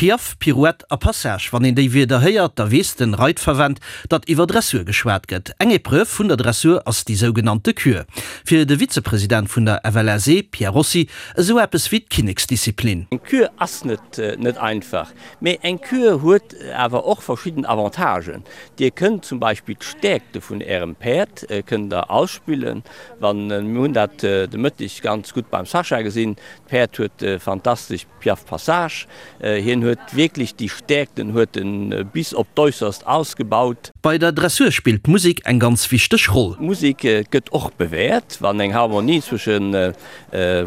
Piaffe, Pirouette a Passage, wann een déi Wierder héiert, da weess den Reitverwend, datt iwwer Dressur geschwat gëtt. Eng Epreuve vun der Dressur ass déi sougenannte Kür. Fir de Vizepresident vun der FLSE, Pierre Rossi, esou eppes wéi d'Kinneksdisziplin. Eng Kür ass net net einfach, mee eng Kür huet awer och verschidden Avantagen. Dir kënnt zum Beispill d'Stäerkte vun Ärem Päerd kënnt der ausspillen. Wann, mir hunn dat de Mëtteg ganz gutt beim Sascha gesinn, d'Päerd huet fantastesch Piaffe Passage, hien huet wierklech déi Stäerkten huet en bis op d'Äusserst ausgebaut. Bei der Dressur spillt d'Musek eng ganz wichteg Roll. D'Musek gëtt och bewäert, wann eng Harmonie zwësche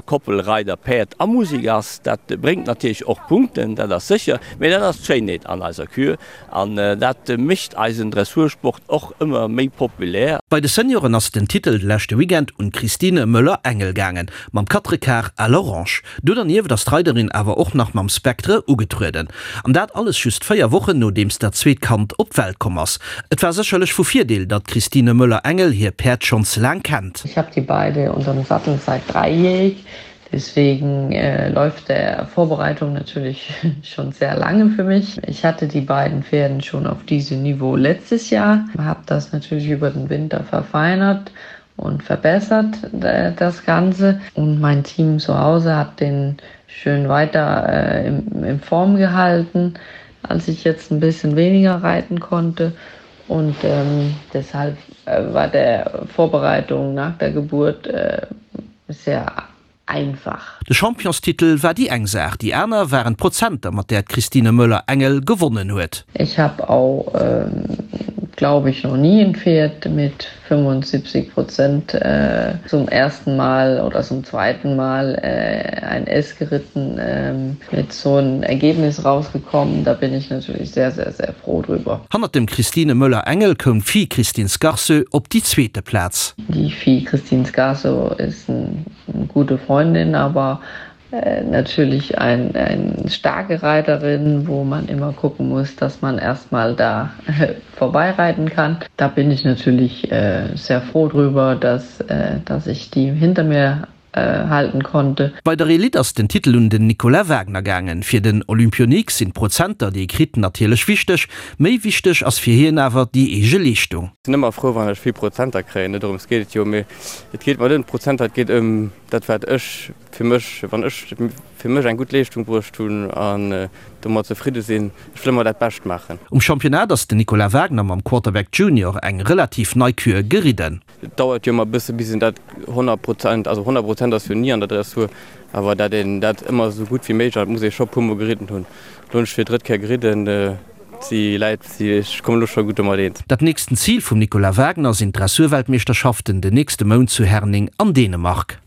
Koppel Reider, Päerd a Musek ass. Dat bréngt natierlech och Punkten, dat ass sécher, mee dat ass d'Schéinheet an eiser Kür an dat mécht eisen Dressursport och ëmmer méi populär. Bei de Senioren ass den Titel de leschte Weekend un d'Christine Möller-Engel gaangen, mam Quatrequart à l'orange. Do dernieft ass d'Reiderin awer och nach mam Spectre ugetrueden. An dat alles just 4 Wochen nodeems dat zweet Kand op d'Welt komm ass. Et war sécherlech vu Virdeel, datt d'Christine Möller-Engel hir Päerd schonns laang kennt. Ich hab die beide unterm Sattel seit dreijährig, deswegen läuft der Vorbereitung natürlich schon sehr lange für mich. Ich hatte die beiden Pferden schon auf diesem Niveau letztes Jahr, hab das natürlich über den Winter verfeinert und verbessert äh, das Ganze. Und mein Team zu Hause hat den schön weiter äh, in, in Form gehalten, als ich jetzt ein bisschen weniger reiten konnte. Und ähm, deshalb äh, war der Vorbereitung nach der Geburt äh, sehr einfach. De Championstitel war déi eng Saach, déi aner waren d'Prozenter, mat där d'Christine Möller-Engel gewonnen huet. Ich habe auch glaube ich noch nie en Pferd mit 75 Prozent zum ersten Mal oder zum zweiten Mal ein S geritten mit so en Ergebnis rausgekommen. Da bin ich natürlich sehr sehr sehr froh drüber. Hannert dem Christine Möller-Engel koum d'Fille Christine Scarso op déi zweete Plaz. Die Fille Christine Scarso ist eine gute Freundin, aber natürlich ein, ein starke Reiterin, wo man immer gucken muss, dass man erstmal da vorbeireiten kann. Da bin ich natürlich äh, sehr froh drüber, dass, äh, dass ich die hinter mir äh, halten konnte. Bei der Elite ass den Titel un den Nicolas Wagner gaangen. Fir den Olympionik sinn d'Prozenter, déi e kritt, natierlech wichteg. Méi wichteg ass fir hien awer déi eege Leeschtung. Sinn ëmmer frou, wann ech vill Prozenter kréien. Net dorëms geet et jo, mee et geet mer net ëm d'Prozenter, et geet ëm dat, wat ech fir mech, wann ech fir mech eng gutt Leeschtung bruecht hunn an domat zefridde sinn. Ech wëll ëmmer dat Bescht maachen. Um Championnat ass den Nicolas Wagner mam Quarterback Junior eng relativ nei Kür geridden. Et dauert jo ëmmer e bësse bis een dat 100 Prozent, also 100 Prozent ass jo ni an der Dressur, awer dat een dat ëmmer esou gutt wéi méiglech, an dat muss ee scho puer mol geridden hunn. Elo hunn ech fir drëtt Kéier geridden, si läit, si, ech kommen elo scho gutt domat eens. Dat nächsten Zil vum Nicolas Wagner sinn d'Dressurweltmeeschterschaften den nächste Mount zu Herning an Dänemark.